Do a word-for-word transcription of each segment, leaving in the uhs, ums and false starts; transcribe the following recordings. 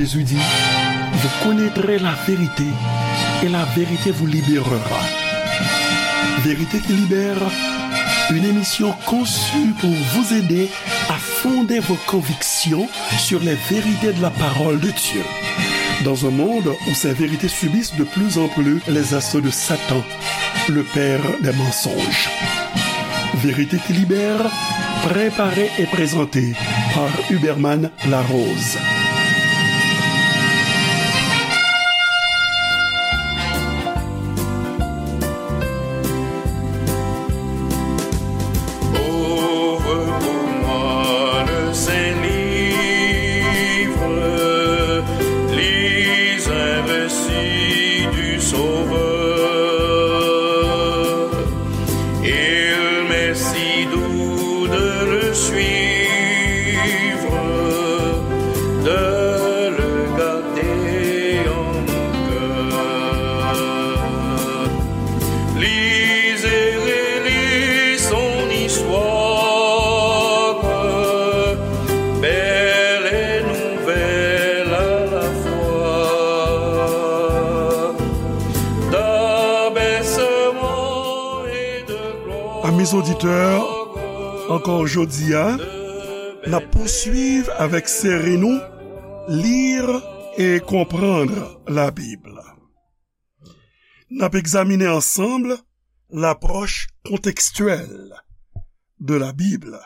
Jésus dit, vous connaîtrez la vérité et la vérité vous libérera. Vérité qui libère, une émission conçue pour vous aider à fonder vos convictions sur les vérités de la parole de Dieu. Dans un monde où ces vérités subissent de plus en plus les assauts de Satan, le père des mensonges. Vérité qui libère, préparée et présentée par Huberman Larose. Ouvre pour moi le Saint-Livre, lis un récit du Sauveur. Il m'est si doux de le suivre, de le garder en mon cœur. Lis et relis son histoire, belle et nouvelle à la fois. D'abaissement et de gloire. Amis auditeurs, ankò jodi a, n ap pouswiv avèk seri nou, Lire et comprendre la Bible. N ap egzamine ansanm lapwòch kontekstyèl de la Bible,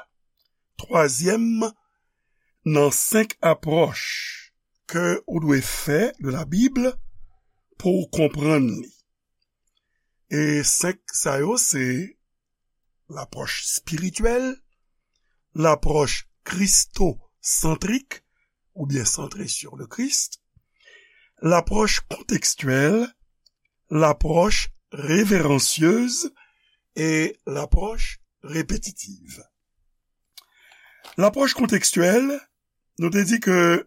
twazyèm nan senk apwòch ke ou dwe fè de la Bible pou w konprann li. E senk sa yo se lapwòch espirityèl, lapwòch kristosantrik, oubyen santre sur le Christ, lapwòch kontekstyèl, lapwòch reveransyez e lapwòch repetitiv. Lapwòch kontekstyèl, nou te di ke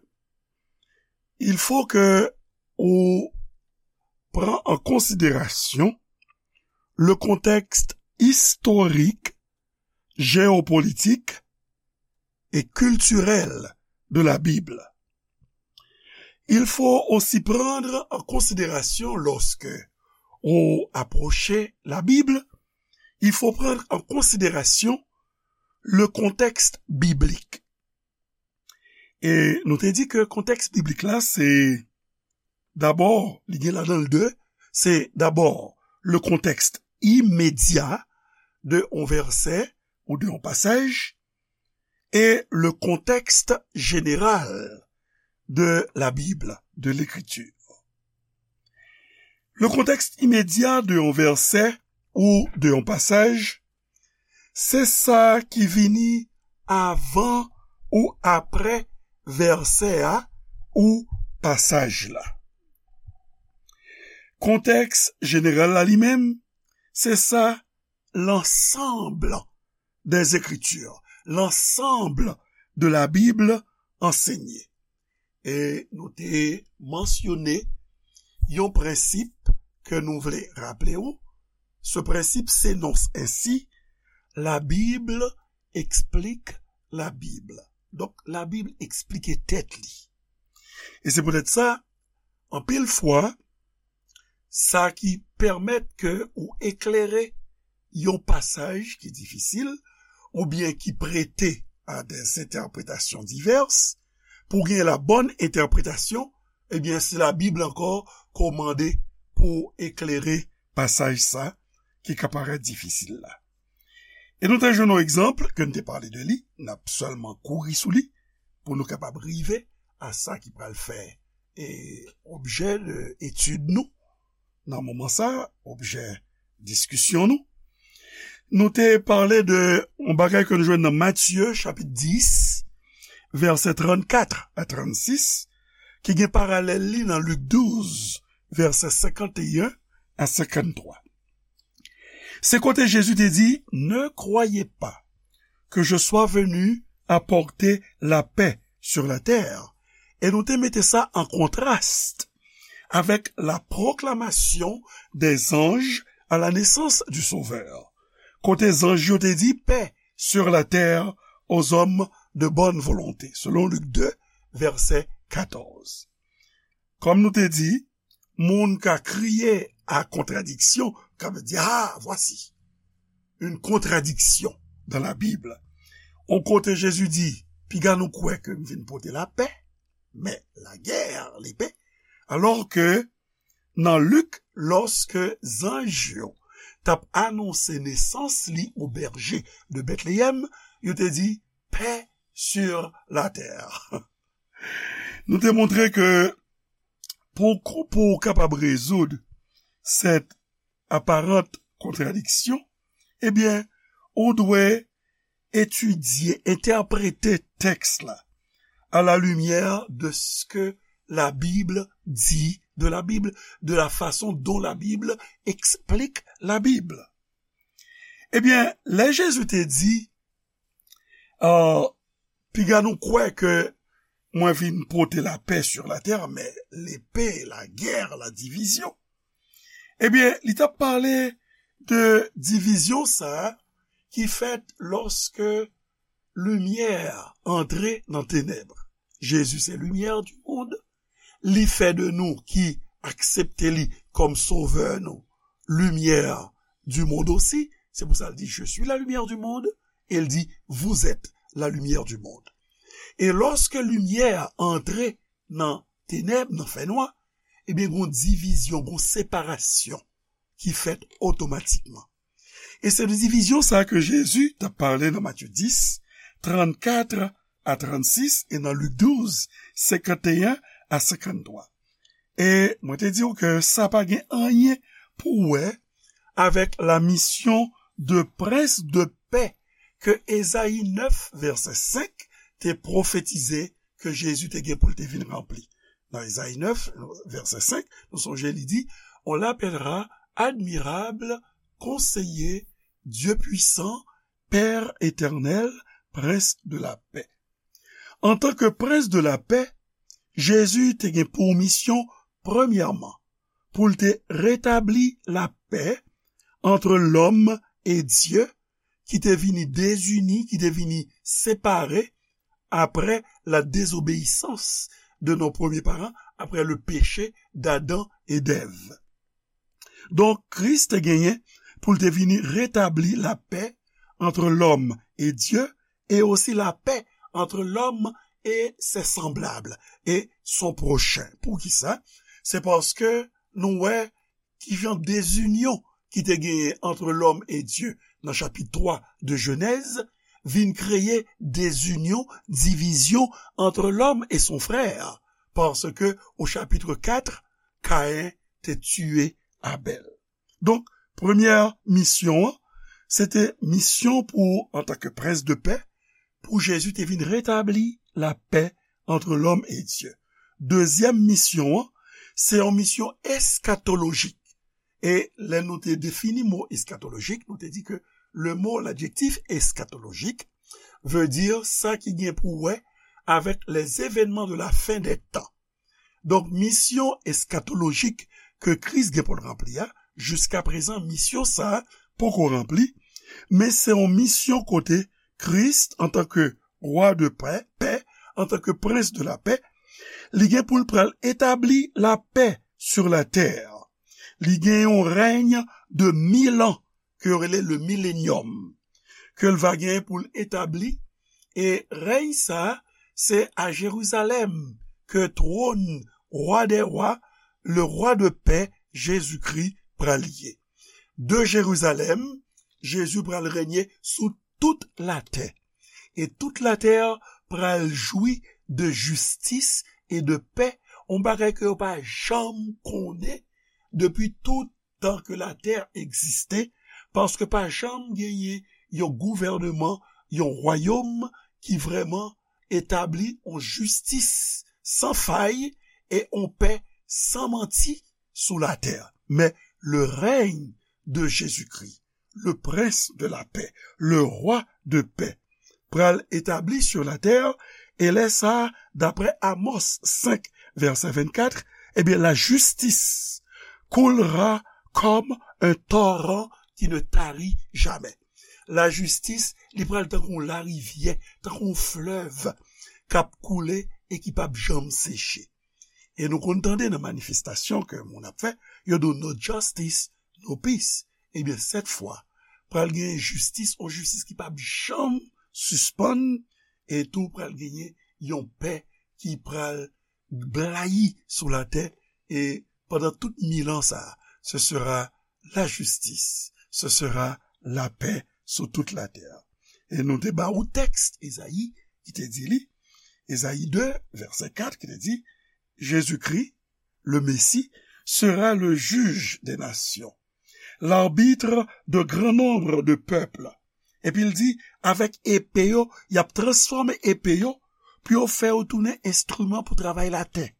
il faut que ou pran an konsiderasyon le contexte historique, géopolitique et culturel de la Bible. Il faut aussi prendre en considération, lorsque on approche la Bible, il faut prendre en considération le contexte biblique. E nou te di ke kontèks biblik la, se dabò, li gen ladan l de, se dabò le contexte immédiat de yon vèsè ou de yon pasaj, et le contexte général de la Bible, de l'écriture. Le contexte immédiat de yon vèsè ou de yon pasaj, se sa ki vini avan ou aprè vèsè a ou pasaj la. Kontèks jeneral la li menm, se sa l'ensemble des Écritures, l'ensemble de la Bible enseignée. E nou te mansyone yon prensip ke nou vle raple w. Ce principe s'énonce ainsi, la Bible explique la Bible. Donk, la Bib eksplike tèt li. E se poutèt sa, anpil fwa, sa ki pèmèt ke ou eklere yon pasaj ki difisil, oubyen ki prete a des interprétations diverses, pou gen la bonne interprétation, ebyen, se la Bib ankò ke w mande pou eklere pasaj sa ki ka parèt difisil la. E nou te jwenn yon egzanp ke n te pale de li, n ap sèlman kouri sou li pou nou kapab rive a sa ki pral fè e objè de etid nou nan moman sa, objè diskisyon nou. Nou te pale de yon bagay ke nou jwenn nan Matye chapit dis, vèsè trannkat a trannsis, ki gen paralèl li nan Lik douz, vèsè senkanteyen a senkanntwa. Se kote Jezi te di, Ne croyez pas que je sois venu apporter la paix sur la terre. E nou te mete sa an kontras avèk la proclamation des anges à la naissance du Sauveur, kote zanj yo te di, Paix sur la terre aux hommes de bonne volonté, selon Lik de, vèsè katòz. Kòm nou te di, moun ka kriye a kontradiksyon, ka di, ah, voici une contradiction dans la Bible. On kote Jezi di, piga nou kwè ke m vin pote lapè, men lagè, lepe. Alò ke nan Lik, lòske zanj yo t ap anonse nesans li o bèje de Betleyèm, yo te di, paix sur la terre. Nou te montre ke pou, pou w kapab rezoud cette apparente contradiction, ebyen, ou dwe etidye, entèprete tèks la à la lumière de ce que la Bible dit de la Bible, de la façon dont la Bible explique la Bible. Ebyen, lè Jezi te di, euh, piga nou kwè ke mwen vin pote lapè sur la terre, men lepe, lagè, la divizyon. Ebyen, li t ap pale de divizyon sa a ki fèt lòske limyè antre nan tenèb. Jezi se limyè di mond. Li fè de nou ki aksepte li kòm sovè nou, limyè di mond osi. Se pou sa l di, je suis la lumière du monde. E l di, vous êtes la lumière du monde. E lòske limyè antre nan tenèb, nan fènwa, ebyen, gon divizyon, gon separasyon ki fèt otomatikman. E se de divizyon sa ke Jezi t ap pale nan Matye dis, trannkat a trannsis, e nan Lik douz, senkanteyen a senkanntwa. E mwen te di w ke sa pa gen anyen pou wè avèk la mission de prince de paix ke Ezayi nèf, vèsè senk, te pwofetize ke Jezi te gen pou l te vin ranpli. Nan Ezayi nèf, vèsè senk, nou sonje li di, on l'appellera admirable, conseiller, Dieu puissant, Père éternel, prince de la paix. Antanke prens de lapè, Jezi te gen pou misyon, premyèman, pou l te retabli lapè ant lòm e Dye, ki te vini dezini, ki te vini separe apre la désobéissance de nos premiers parents, après le péché d'Adam e d'Èv. Donk, Kris te genyen pou l te vini retabli lapè ant lòm e Dye, e osi lapè ant lòm e ses semblables, e son prochen. Poukisa? Se paske nou wè ki jan dezinyon ki te genyen ant lòm e Dye nan chapit twa de Jenèz vin kreye dezinyon, divizyon ant lòm e son frè, paske o chapit kat, Kayen te tiye Abèl. Donk, premyè misyon an, se te misyon pou, antanke prens de pè, pou Jezi te vin retabli lapè ant lòm e Dye. Dezyèm misyon an, se yon misyon eskatolojik. E lè nou te defini mo eskatolojik, nou te di ke le mot, l'adjectif eschatologique, veut dire sa ki gen pou wè avèk les événements de la fin des temps. Donk, misyon eskatolojik ke Kris gen pou l ranpli a, jiskaprezan, misyon sa a poko ranpli, men se yon misyon kote Kris, antanke wa de pè, pè, antanke prens de lapè, li gen pou l pral etabli lapè sur la terre. Li gen yon rèy de mil an ke yo rele le millennium, ke l va gen pou l etabli, e rèy sa a, se a Jerizalèm ke twòn wa dè wa, le rwa de pè, Jezikri, pral ye. De Jerizalèm, Jezi pral renye sou tout latè. E tout latè pral jwi de jistis e de pè, yon bagay ke yo pa janm konnen depi tout tan ke latè egziste, paske pa janm genyen yon gouvèneman, yon wayòm ki vrèman etabli yon jistis san fay e yon pè san manti sou latè. Men le règne de Jésus-Christ, le prince de la paix, le roi de paix, pral etabli sur la terre, e lè sa a, daprè Amos senk, vèsè vennkat, ebyen, la justice coulera comme un torrent qui ne tarit jamais. Lajistis, li pral tankou yon larivyè, tankou yon flèv k ap koule e ki p ap janm seche. E nou konn tande nan manifestasyon ke moun ap fè, yo di w, "No justice, no peace." Ebyen, sèt fwa, pral gen jistis, yon jistis ki p ap janm sispann, e tou pral genyen yon pè ki pral blayi sou latè, e pandan tout mil an sa, ce sera la justice, ce sera la paix sur toute la terre. E nou te ba ou tèks Ezayi ki te di li, Ezayi de, vèsè kat, ki te di, Jésus-Christ, le Messie, sera le juge des nations, l'arbitre de grand nombre de peuples. Epi l di, avèk epe yo, y ap transfòme epe yo pou yo fè yo tounen enstriman pou travay latè.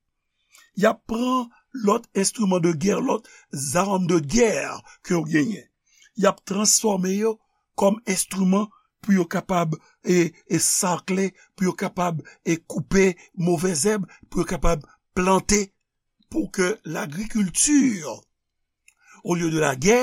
Y ap pran lòt enstriman de gè, lòt zam de gè ke yo genyen. Y ap transfòme yo kòm enstriman pou yo kapab e, e sakle, pou yo kapab e koupe movèzèb, pou yo kapab plante, pou ke lagrikilti, olye de la gè,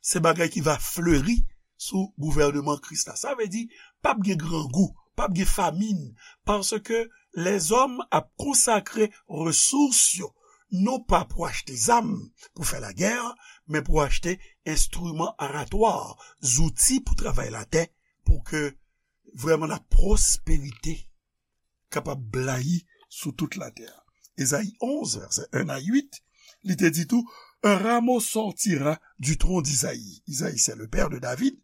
se bagay ki va fleri sou gouvènman Kris la. Sa vle di, p ap gen grangou, p ap gen famin, paske lèzòm ap konsakre resous yo, non pa pou achte zam pou fè lagè, men pou achte enstriman aratwa, zouti pou travay latè, pou ke vrèman la pwosperite kapab blayi sou tout latè. Ezayi onz, vèsè en a uit, li te di tou, un rameau sortira du tronc d'Isaïe. Isaïe, c'est le père de David.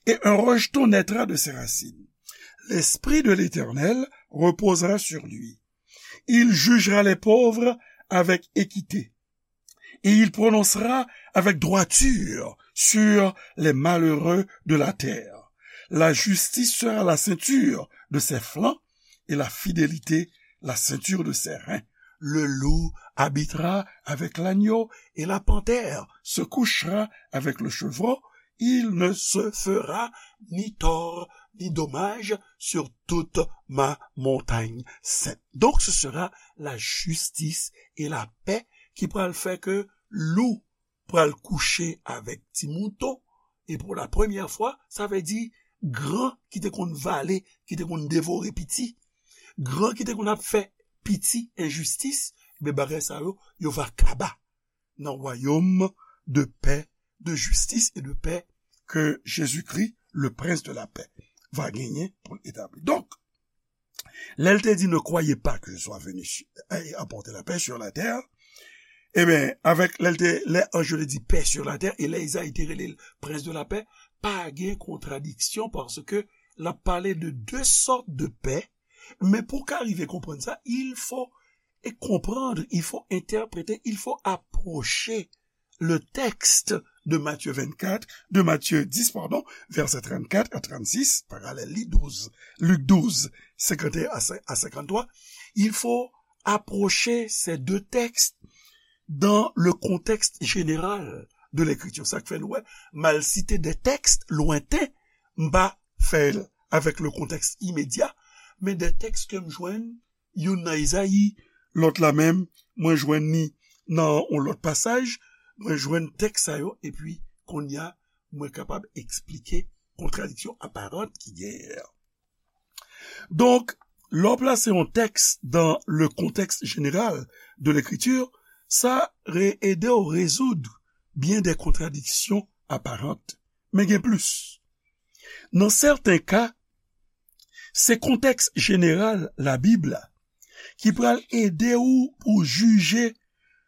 Et un rejeton naîtra de ses racines. L'Esprit de l'Éternel reposera sur lui. Il jugera les pauvres avec équité. Et il prononcera avec droiture sur les malheureux de la terre. La justice sera la ceinture de ses flancs et la fidélité la ceinture de ses reins. Le loup habitera avec l'agneau et la panthère se couchera avec le chevreau. Il ne se fera ni tort ni dommage sur toute ma montagne sainte. Donc ce sera la justice et la paix ki pral fè ke lou pral kouche avèk ti mouton, e pou la premyè fwa, sa vle di gran ki te konn vale, ki te konn devore piti, gran ki te konn ap fè piti enjistis, men bagay sa yo, yo va kaba nan wayòm de pè, de jistis e de pè ke Jezikri, le Prince de la Paix, va genyen pou l etabli. Donk, lè l te di, ne croyez pas que je sois venu su- et apporter la paix sur la terre, ebyen, avèk lè l te, lè anj yo te di paix sur la terre, e lè Izayi te rele l Prince de la Paix, pa gen kontradiksyon paske l ap pale de de sòt de pè, men pou w ka rive konprann sa, il faut et comprendre, il faut interpréter, il faut approcher le texte de Matthieu vingt-quatre, de Matthieu dix, pardon, verset trente-quatre à trente-six, paralèl li douz, Lik douz, cinquante et un à cin- à cinquante-trois, il faut approcher ces deux textes dans le contexte général de l'écriture. Sa k fè nou wè, m al site de tèks lwenten, m pa fè l avèk le contexte immédiat, men de tèks ke m jwenn youn nan Izayi, lòt la menm, mwen jwenn ni nan yon lòt pasaj, mwen jwenn tèks sa yo, epi kounye a, mwen kapab eksplike kontradiksyon aparant ki genyen an. Donk, lè w plase yon tèks dans le contexte général de l'écriture, sa re- ede w rezoud byen de kontradiksyon aparant. Men gen plis. Nan sèten ka, se kontèks jeneral Labib la ki pral ede w pou jije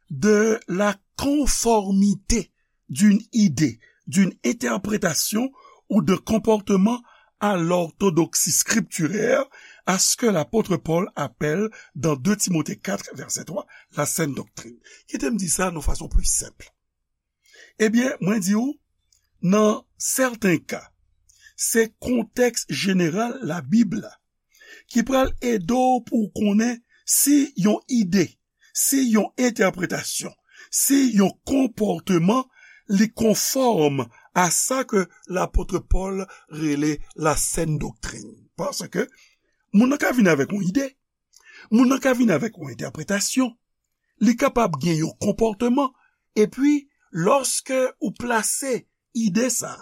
de la conformité d'une idée, d'une interprétation ou d'un comportement à l'orthodoxie scripturaire, à ce que l'apôtre Paul appelle dans deux Timothée quatre, verset trois, la saine doctrine. Kite m di sa nan fason pli senp. Ebyen, mwen di w, nan sèten ka, se kontèks jeneral Labib la ki pral ede w pou w konnen si yon ide, si yon entèpretasyon, si yon konpòteman, li konfòm a sa ke lapot Pòl rele la sèn doktrin. Paske moun nan ka vin avèk yon ide, moun nan ka vin avèk yon entèpretasyon, li kapab gen yon konpòteman, epi lòske ou plase ide sa,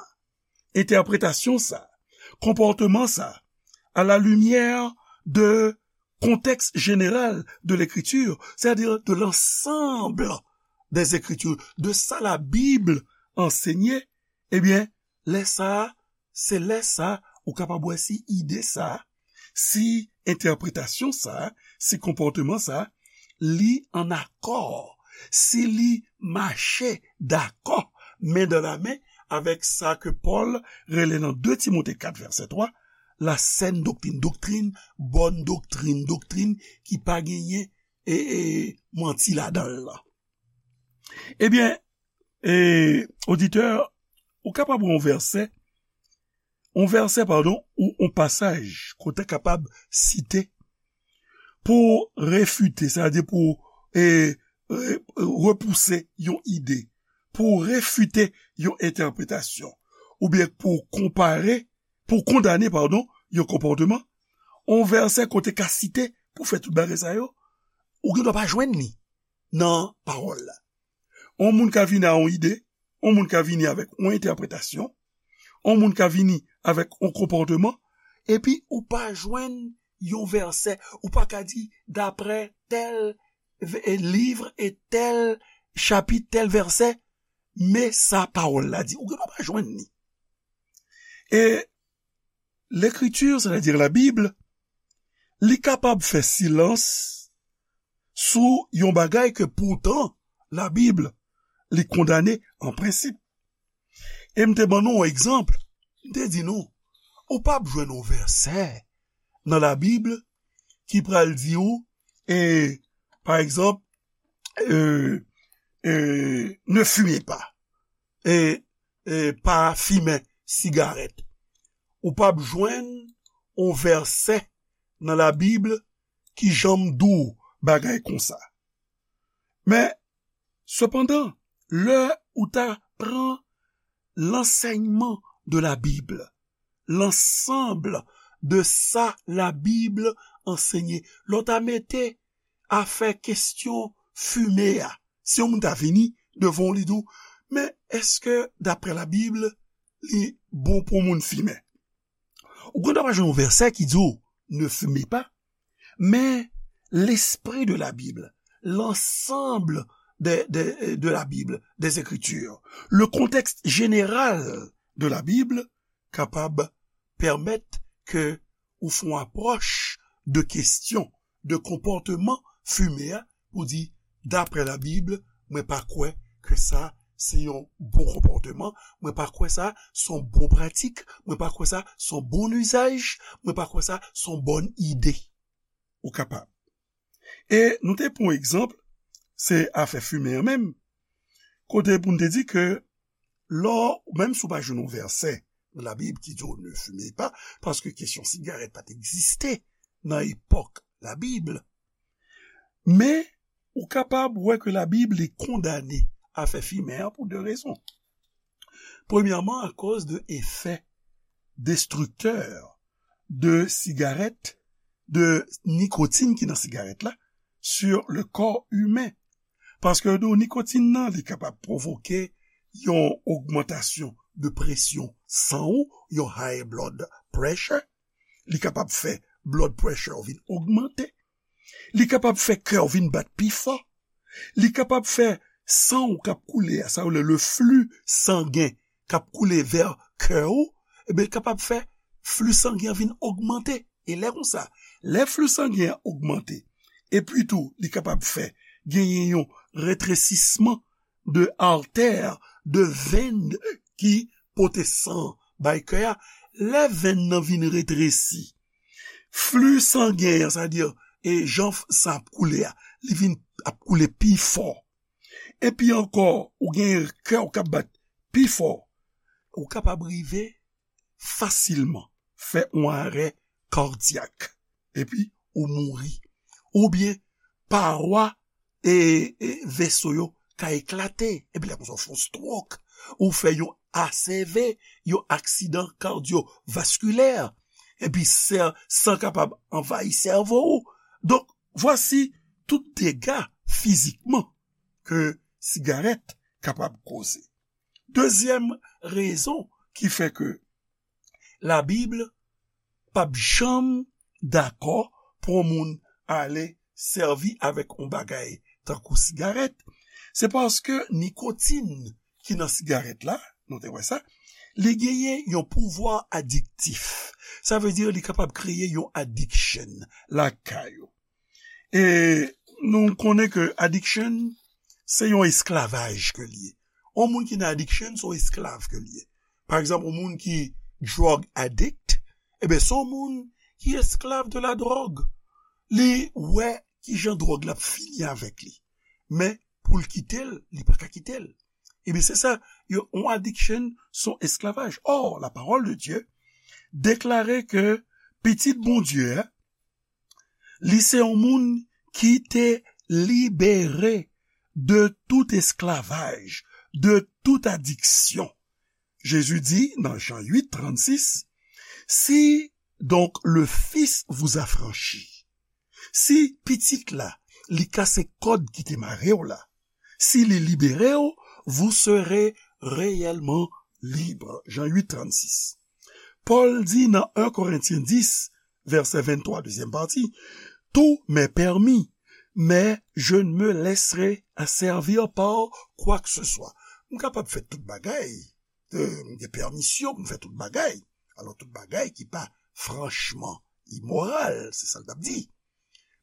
entèpretasyon sa, konpòteman sa, à la lumière de contexte général de l'écriture, c'est-à-dire de l'ensemble des Écritures, de sa Labib anseye, ebyen, lè sa a, se lè sa a, ou kapab wè si ide sa a, si entèpretasyon sa a, si konpòteman sa a, li ann akò, si li mache dakò, men dan la men, avèk sa ke Pòl rele nan de Timote kat vèsè twa, la sèn doktrin, doktrin, bòn doktrin, doktrin ki pa genyen e, e, manti ladan l lan. Ebyen, e, oditè, ou kapab wè yon vèsè, yon vèsè, padon, ou yon pasaj ke w ta kapab site pou refite, sètadi pou, e, re-, repouse yon ide, pou refite yon entèpretasyon, oubyen pou konpare, pou kondane, padon, yon konpòteman, yon vèsè ke w te ka site pou fè tout bagay sa yo, ou gen dwa pa jwenn li nan pawòl la. Yon moun ka vini a yon ide, yon moun ka vini avèk yon entèpretasyon, yon moun ka vini avèk yon konpòteman, epi ou pa jwenn yon vèsè, ou pa ka di, daprè tèl v-, e, liv e tèl chapit, tèl vèsè, men sa pawòl la di. Ou gen dwa pa jwenn li. E Lekritir, sètadi Labib, li kapab fè silans sou yon bagay ke poutan Labib li kondane an prensip. E m te ban nou yon egzanp, m te di nou, ou p ap jwenn yon vèsè nan Labib ki pral di w, e, pa egzanp, e, e, ne fumez pas, e, e, pa fimen sigarèt. Ou p ap jwenn yon vèsè nan Labib ki janm di w bagay konsa. Men, sepandan, lè ou ta pran lansèyman de Labib, lansanb de sa Labib anseye, lè w ta mete afè kesyon fimen an, si yon moun ta vini devan w, li di w, men èske, daprè Labib, li bon pou moun fimen? Ou gen dwa pa jwenn yon vèsè ki di w, ne fumez pas, men lespri de Labib, l'ensemble de, de, de Labib, des Écritures, le contexte général de Labib kapab pèmèt ke ou fè yon apwòch de kesyon, de konpòteman fimen an, pou di, daprè Labib, mwen pa kwè ke sa se yon bon konpòteman, mwen pa kwè sa se yon bon pratik, mwen pa kwè sa se yon bon izaj, mwen pa kwè sa se yon bòn ide. Ou kapab. E nou te pran egzanp, se afè fimen an menm, kote pou n te di ke lè w, menm si w pa jwenn yon vèsè nan Labib ki di w ne fumez pas, paske kesyon sigarèt pa t egziste nan epòk Labib, men ou kapab wè ke Labib li kondane afè fimen an pou de rezon. Premyèman, akoz de efè destriktè de sigarèt, de nikotin ki nan sigarèt la, sur le corps humain. Paske nou, nikotin nan, li kapab pwovoke yon ogmantasyon de presyon san w, yon high blood pressure. Li kapab fè blood pressure w vin ogmante. Li kapab fè kè w vin bat pi fò. Li kapab fè san w k ap koule a, sa yo rele le flux sangen k ap koule vè kè w, ebyen, li kapab fè flux sangen an vin ogmante. E lè konsa, lè flux sangen an ogmante, epi tou, li kapab fè genyen yon retresisman de artè, de venn ki pote san bay kè a. Lè venn nan vin retresi, flux sangen an, sètadi, e jan f-, san ap koule a, li vin ap koule pi fò. Epi ankò, ou gen kè w k ap bat pi fò. Ou kapab rive fasilman fè yon arè kadyak. Epi ou mouri. Oubyen, pawòl e, e veso yo ka eklate. Epi lè konsa, ou fè yon stroke, ou fè yon A C V, yon aksidan kadyovaskilè. Epi sè-, san kapab anvayi sèvo ou. Donk, vwasi tout dega fizikman ke sigarèt kapab koze. Dezyèm rezon ki fè ke Labib p ap janm dakò pou yon moun ale sèvi avèk yon bagay tankou sigarèt, se paske nikotin ki nan sigarèt la, nou te wè sa, li genyen yon pouvwa adiktif. Sa vle di li kapab kreye yon addiction lakay ou. E nou konnen ke addiction, se yon esklavaj ke li ye. Yon moun ki nan addiction, se yon esklav ke li ye. Pa egzanp, yon moun ki drug addict, ebyen, se yon moun ki esklav de la dròg. Li wè ki jan dròg la ap fini avèk li. Men, pou l kite l, li pa ka kite l. Ebyen, se sa, yo, yon addiction, se yon esklavaj. Or, la parole de Dieu deklare ke pitit Bondye a, li se yon moun ki te libere de tout esclavage, de toute addiction. Jésus dit dans Jean huit trente-six, si donc le Fils vous affranchit, si pitit la, li kase kòd ki te mare w la, si li libere w, vous serez réellement libre. Jean huit trente-six. Paul dit dans un Corinthiens dix, verset vingt-trois, deuxième partie, tout m'est permis, mais je ne me laisserai asservir par quoi que ce soit. M kapab fè tout bagay, euh, m gen pèmisyon pou m fè tout bagay. Alò, tout bagay ki pa franchman imoral, se sa l t ap di.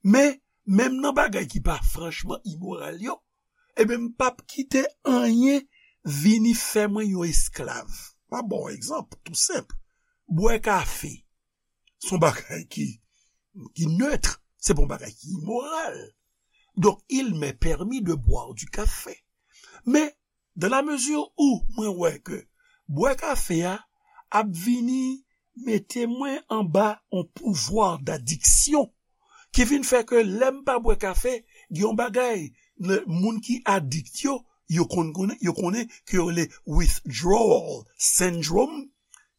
Men, menm nan bagay ki pa franchman imoral yo, ebyen, m p ap kite anyen vini fè mwen yon esklav. M ap ba w yon egzanp, tou senp. Bwè kafe, se yon bagay ki, ki neutre, se pa yon bagay ki imoral. Donc, il m'est permis de boire du café. Men, dans la mesure où mwen wè ke bwè kafe a ap vini mete mwen anba yon pouvwa d'addiction ki vin fè ke lè m pa bwè kafe, gen yon bagay, le, moun ki adikt yo, yo konn konnen, yo konnen ke yo rele withdrawal syndrome,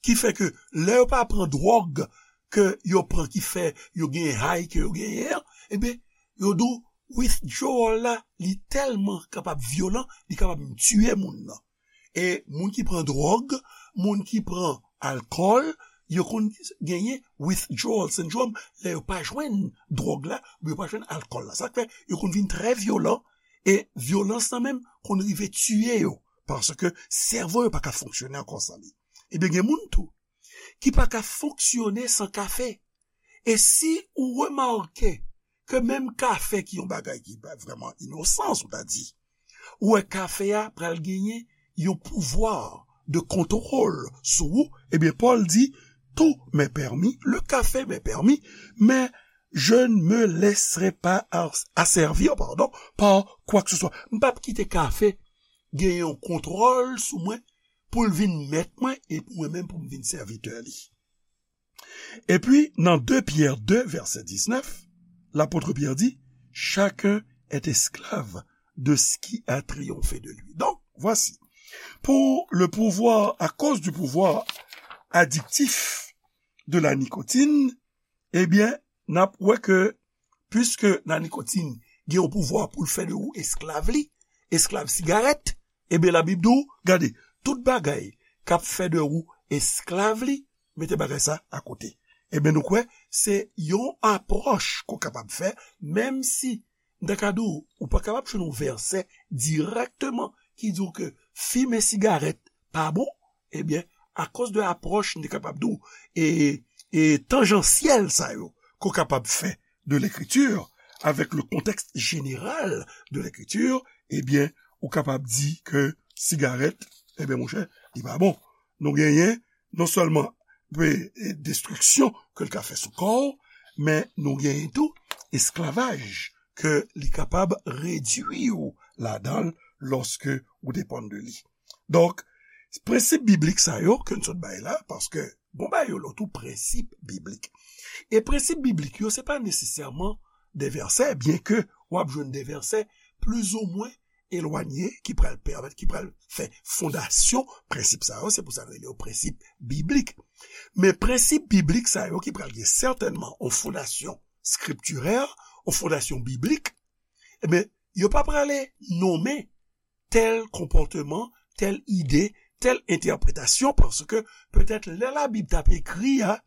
ki fè ke lè yo pa pran dwòg ke yo pran ki fè yo genyen high ke yo genyen an, ebyen, yo di w withdrawal la, li tèlman kapab vyolan, li kapab menm tiye moun nan. E moun ki pran dwòg, moun ki pran alkòl, yo konn genyen withdrawal syndrome lè yo pa jwenn dwòg la, oubyen yo pa jwenn alkòl la. Sa k fè yo konn vin trè vyolan, e vyolans lan menm konn rive tiye yo, paske sèvo yo pa ka fonksyone ankò san li. Ebyen, gen moun tou ki pa ka fonksyone san kafe. E si ou remake ke menm kafe ki yon bagay ki pa vrèman inosan, si w ta di, ou wè kafe a pral genyen yon pouvwa de kontwòl sou ou, ebyen, Pòl di, tout m'est permis, le café m'est permis, mais je ne me laisserai pas as-, asservir, pardon, par quoi que ce soit. M p ap kite kafe gen yon kontwòl sou mwen pou l vin mèt mwen e pou mwen menm pou m vin sèvitè li. Epi, nan de Pyè de, vèsè diznèf, lapot Pyè di, chacun est esclave de ce qui a triomphé de lui. Donc, voici, pour le pouvoir, à cause du pouvoir addictif de la nicotine, ebyen, n ap wè ke, piske la nikotin gen yon pouvwa pou l fè de ou esklav li, esklav sigarèt, ebyen, Labib di w, gade, tout bagay k ap fè de ou esklav li, mete bagay sa akote. Ebyen, nou kwè, se yon apwòch ke w kapab fè, menm si, m ta ka di w, ou pa kapab jwenn yon vèsè dirèkteman ki di w ke fimen sigarèt pa bon, ebyen, akoz de apwòch, m te kapab di w, e, e tanjansyèl sa yo, ke w kapab fè de lekritir, avèk le contexte général de l'écriture, ebyen, ou kapab di ke sigarèt, ebyen, monchè, li pa bon. Nou genyen non sèlman pe, e, destriksyon ke l ka fè sou kò w, men nou genyen tou esklavaj ke li kapab redui w ladan l lòske ou depann de li. Donk, prensip biblik sa yo ke n sot bay la, paske bon bagay yo lòt ou prensip biblik. E prensip biblik yo, se pa nesesèman de vèsè, byenke w ap jwenn de vèsè plizoumwen elwanye ki pral pèmèt, ki pral fè fondasyon prensip sa yo, se pou sa n rele yo prensip biblik. Men prensip biblik sa yo ki pral gen sètènman yon fondasyon skriptirè, yon fondasyon biblik, ebyen, yo pa prale nonmen tèl konpòteman, tèl ide, tèl entèpretasyon, paske petèt lè Labib t ap ekri a,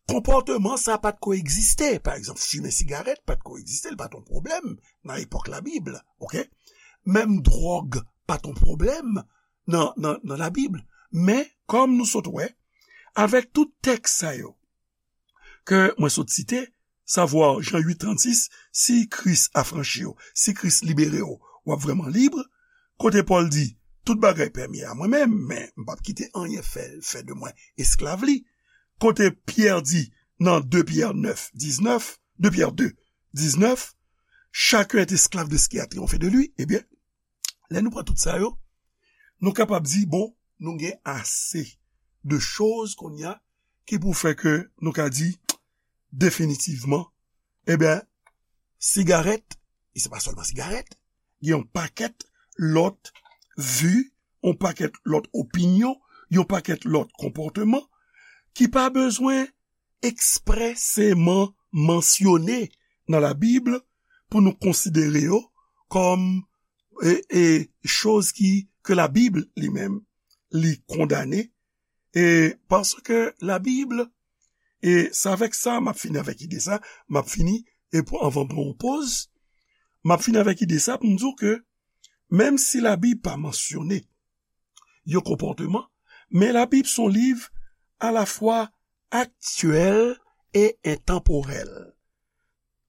konpòteman sa pa t ko egziste. Pa egzanp, fimen sigarèt pa t ko egziste, li pa t yon pwoblèm nan epòk Labib, oke? Menm dwòg pa t yon pwoblèm nan, nan, nan Labib. Men, kòm nou sot wè, avèk tout tèks sa yo ke mwen sot site, savwa Jan uit trannsis, si Kris afranchi w, si Kris libere w, w ap vrèman lib. Kote Pòl di, tout bagay pèmi a mwen menm, men m p ap kite anyen fè, fè de mwen esklav li. Kote Pyè di nan de Pyè nèf diznèf, de Pyè de diznèf, chacun est esclave de ce qui a triomphe de lui, ebyen, lè nou pran tout sa yo, nou kapab di, bon, nou gen ase de choz kounye a ki pou fè ke nou ka di definitivman, ebyen, sigarèt, e se pa sèlman sigarèt, gen yon pakèt lòt vi, yon pakèt lòt opinyon, yon pakèt lòt konpòteman ki pa bezwen ekspreseman mansyone nan Labib pou nou konsidere yo kòm e, e, choz ki, ke Labib li menm li kondane, e paske Labib, e se avèk sa m ap fini avèk ide sa, m ap fini, e pou, anvan m pran yon poz, m ap fini avèk ide sa pou m di w ke menm si Labib pa mansyone yon konpòteman, men Labib se yon liv alafwa aktyèl e entanporèl.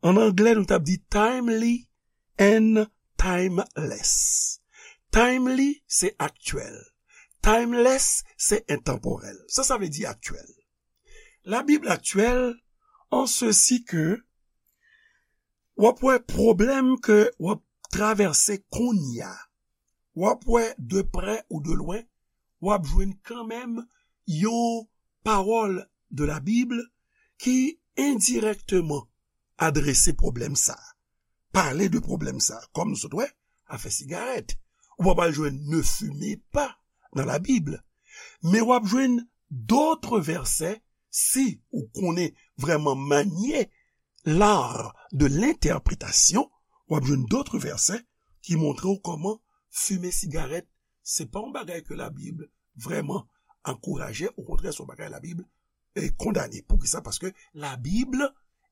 An anglè, nou t ap di timely and timeless. Timely, se aktyèl. Timeless, se entanporèl. Sa, sa vle di aktyèl. Labib aktyèl, an sesi ke w ap wè pwoblèm ke w ap travèse kounye a, w ap wè de prè ou de lwen, w ap jwenn kanmenm yon pawòl de Labib ki endirèkteman adrese pwoblèm sa a, pale de pwoblèm sa a. Kòm nou sot wè, afè sigarèt. Ou pa pral jwenn ne fumez pas nan Labib. Men w ap jwenn dòt vèsè, si ou konnen vrèman manye l'art de l'interprétation, w ap jwenn dòt vèsè ki montre w kòman fimen sigarèt, se pa yon bagay ke Labib vrèman ankouraje, okontrè, se yon bagay Labib e kondane. Poukisa? Paske Labib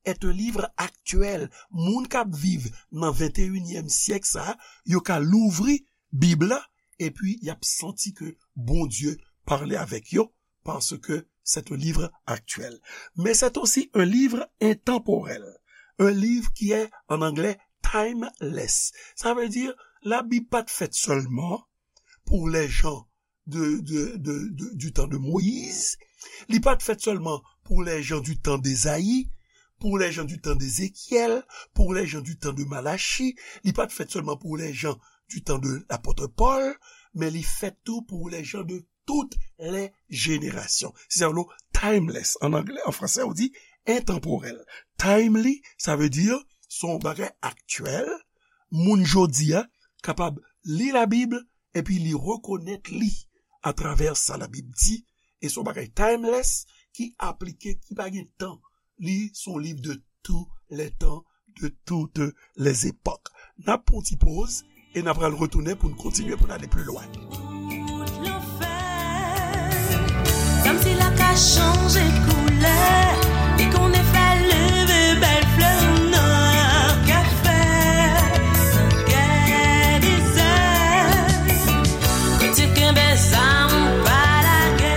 est un livre actuel. Moun k ap viv nan venteyinyèm syèk sa a, yo ka louvri Bib la, epi y ap santi ke Bondye pale avèk yo, paske c'est un livre actuel. Mais c'est aussi un livre intemporel, un livre qui est en anglais timeless. Sa vle di, Labib pa t fèt sèlman pou les gens de, de, de, de, du temps de Moïse. Li pa t fèt sèlman pour les gens du temps d'Ésaïe, pour les gens du temps d'Ézéchiel, pour les gens du temps de Malachie. Li pa t fèt sèlman pour les gens du temps de l'apôtre Paul, men li fèt tou pour les gens de toutes les générations. Se sa yo rele timeless. An anglè, an fransè, ou di entanporèl. Timely, sa vle di se yon bagay aktyèl, moun jodi a kapab li Labib epi li rekonèt li atravè sa Labib di, e se yon bagay timeless ki aplike, ki pa gen tan. Li se yon liv de tous les temps, de toutes les époques. N ap pran yon ti poz e n ap pral retounen pou n kontinye, pou n ale pli lwen. Kòmsi la ka chanje koulè, li konnen fè leve bèl flè nan kafè. Gè dezè, kote kenbe zam ou pa lage.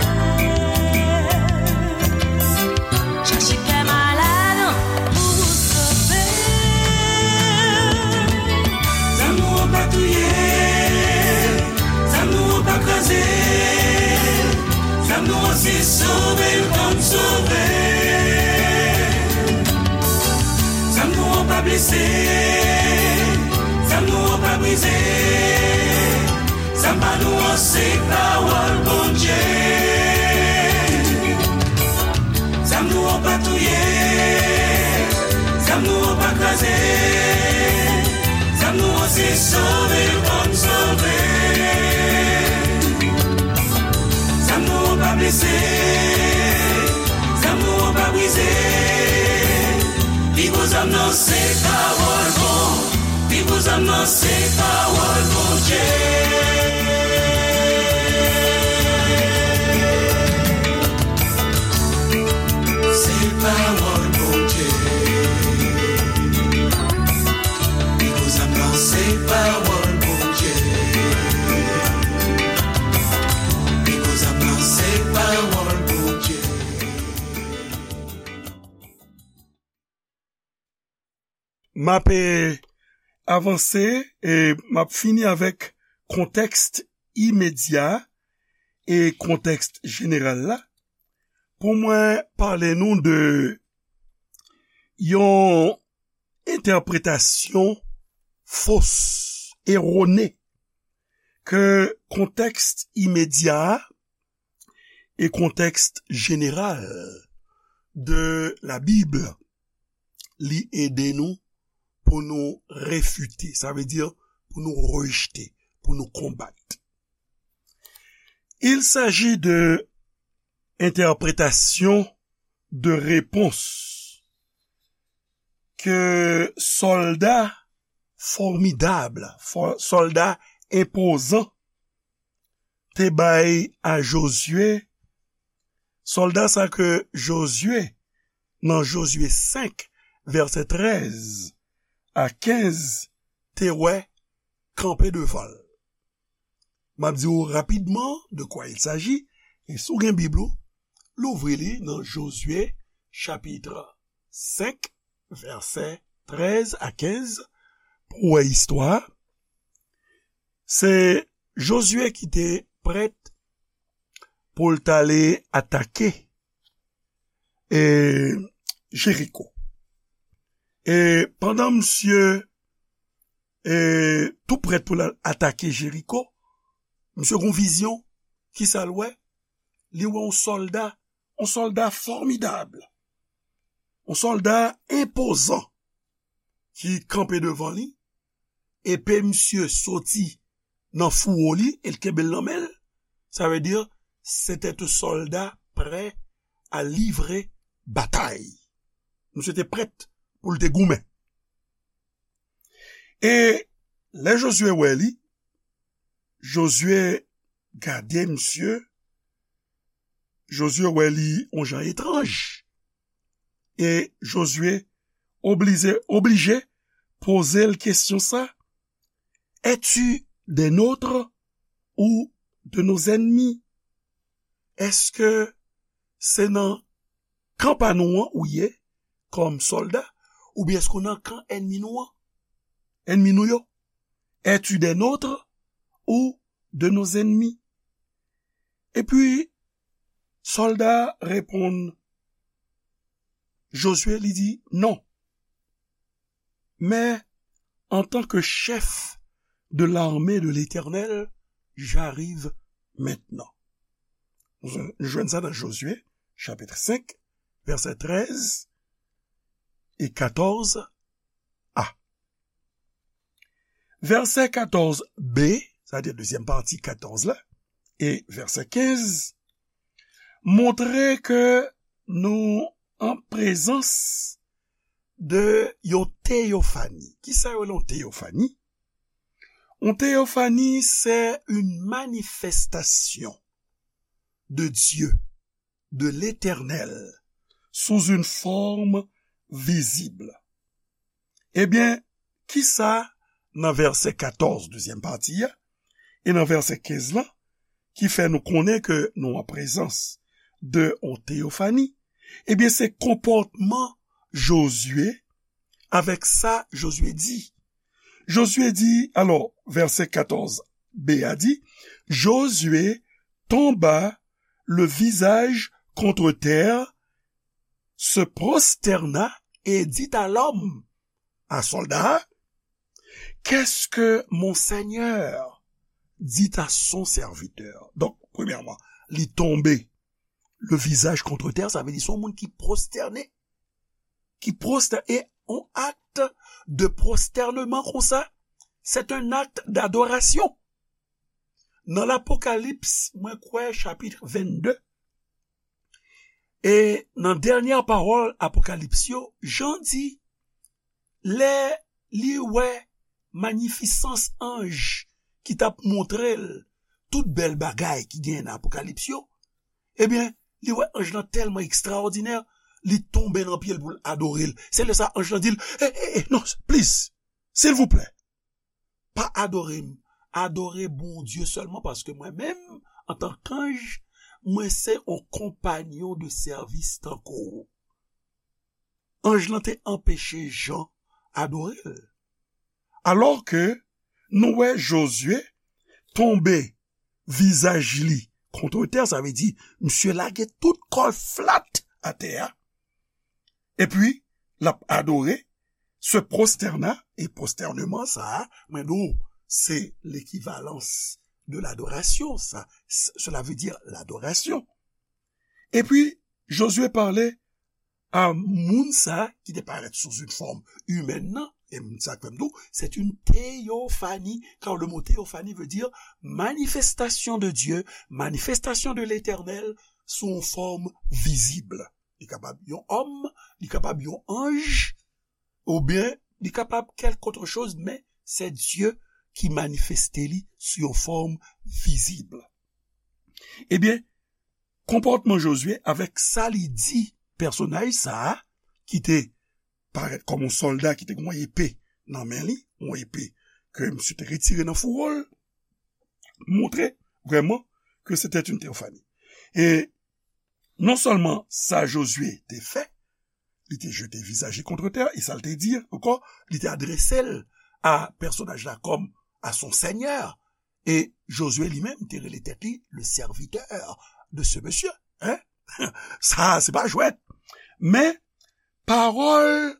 Chache kè malad pou sove. Zam nou an pa touye, zam nou an pa kraze, zam nou an se sove l konn sove. Zam nou an pa blese, zam nou an pa brize. Zam pa nou an se pawòl Bondye. Zam nou an pa touye, zam nou an pa kraze. Zam nou an se sove l konn sove. Zam nou an pa blese, zam nou an pa brize. Pi gwo zam nan se pawòl Bondye. Pi gwo zam nan se pawòl Bondye. Se pa M ap, e, avanse e m ap fini avèk kontèks imedya e kontèks jeneral la pou mwen pale nou de yon entèpretasyon fos, erone, ke kontèks imedya a e kontèks jeneral de la Bible, li ede nou pou nou refite, sa vle di pou nou rejte, pou nou konbat. Il s'agit de entèpretasyon de repons ke sòlda fòmidab, fò- sòlda enpozan te bay a Jozye, sòlda sa ke Jozye, nan Jozye senk, vèsè trèz a kenz, te wè kanpe devan l. M ap di w rapidman de kwa il s'agit, e si w gen Bib ou, louvri li nan Jozye, chapit senk, vèsè trèz a kenz, pou w wè istwa. Se Jozye ki te prèt pou l t ale atake, e, Jeriko. E pandan misye, e, tou prèt pou l al atake Jeriko, misye gon vizyon. Kisa l wè? Li wè yon sòlda, yon sòlda fòmidab, yon sòlda enpozan ki kanpe devan li, epe misye soti nan fouwo li e l kenbe l nan men l. Sa vle di, se te yon sòlda prè a livre batay. Misye te prèt pou l te goumen. E lè Jozye wè li, Jozye gade misye, Jozye wè li yon jan etranj. E Jozye oblije, oblije poze l kesyon sa, es-tu des nôtres ou de nos ennemis? Èske se nan kan pa nou an ou ye kòm sòlda, oubyen èske w nan kan ènmi nou an? Ènmi nou yo? Es-tu des nôtres ou de nos ennemis? Epi, sòlda a reponn Jozye, li di, non. Mais en tant que chef de l'armée de l'Éternel, j'arrive maintenant. Nou jwenn sa nan Jozye, chapit senk, vèsè trèz e katòz a. Vèsè katòz b, sa vle di dezyèm pati katòz la, e vèsè kenz, montre ke nou an prezans de yon teyofani. Kisa yo rele yon teyofani? Yon teyofani, c'est une manifestation de Dieu, de l'Éternel, sous une forme visible. Ebyen, kisa nan vèsè katòz, dezyèm pati a, e nan vèsè kenz lan, ki fè nou konnen ke nou an prezans de yon teyofani? Ebyen, se konpòtman Jozye avèk sa Jozye di. Jozye di, alò, vèsè katòz b a di, Josué tomba le visage contre terre, se prosterna et dit à l'homme, à soldat, qu'est-ce que mon Seigneur dit à son serviteur? Donk, premyèman, li tonbe le visage contre terre, sa vle di se yon moun ki pwostène, ki pwostène, e yon akt de pwostènman konsa, c'est un acte d'adoration. Nan Lapokalips, mwen kwè chapit vennde, e nan dènyè pawòl Apokalips yo, Jan di, lè li wè manifisans anj ki t ap montre l tout bèl bagay ki genyen nan Apokalips yo, ebyen, li wè anj lan tèlman ekstraòdinè, li tonbe nan pye l pou l adore l. Se lè sa anj lan di l, "E, e, e, non, please, silvouplè, pa adore m, adore Bondye sèlman, paske mwen menm, antank anj, mwen se yon konpanyon de sèvis tankou w." Anj lan te anpeche Jan adore l. Alò ke nou wè Jozye tonbe vizaj li kont tè, sa vle di, misye lage tout kò l flat atè a, epi l ap adore, se prostène, e prostèneman sa a, mwen di w, se lekivalans de ladorasyon, sa, s-, cela veut dire l'adoration. Epi, Jozye pale a moun sa ki te parèt sou yon fòm imèn nan, e m, sa k fè m di w, c'est une théophanie, car le mot théophanie veut dire manifestation de Dieu, manifestation de l'Éternel sous une forme visible. Li kapab yon òm, li kapab yon anj, oubyen li kapab kèlkòt choz, men se Dye ki manifeste li sou yon fòm vizib. Ebyen, konpòtman Jozye avèk sa li di pèsonaj sa a, ki te parèt kòm yon sòlda ki te gen yon epe nan men li, yon epe ke misye te retire nan fouwo l, montre vrèman ke se te yon teyofani. E non sèlman sa Jozye te fè, li te jete vizaj li kont tè, e sa l te di ankò, li te adrese l a pèsonaj la kòm a son sènyè. E Jozye li menm te rele tèt li le serviteur de ce monsieur. Hein? Sa, se pa jwèt. Men, pawòl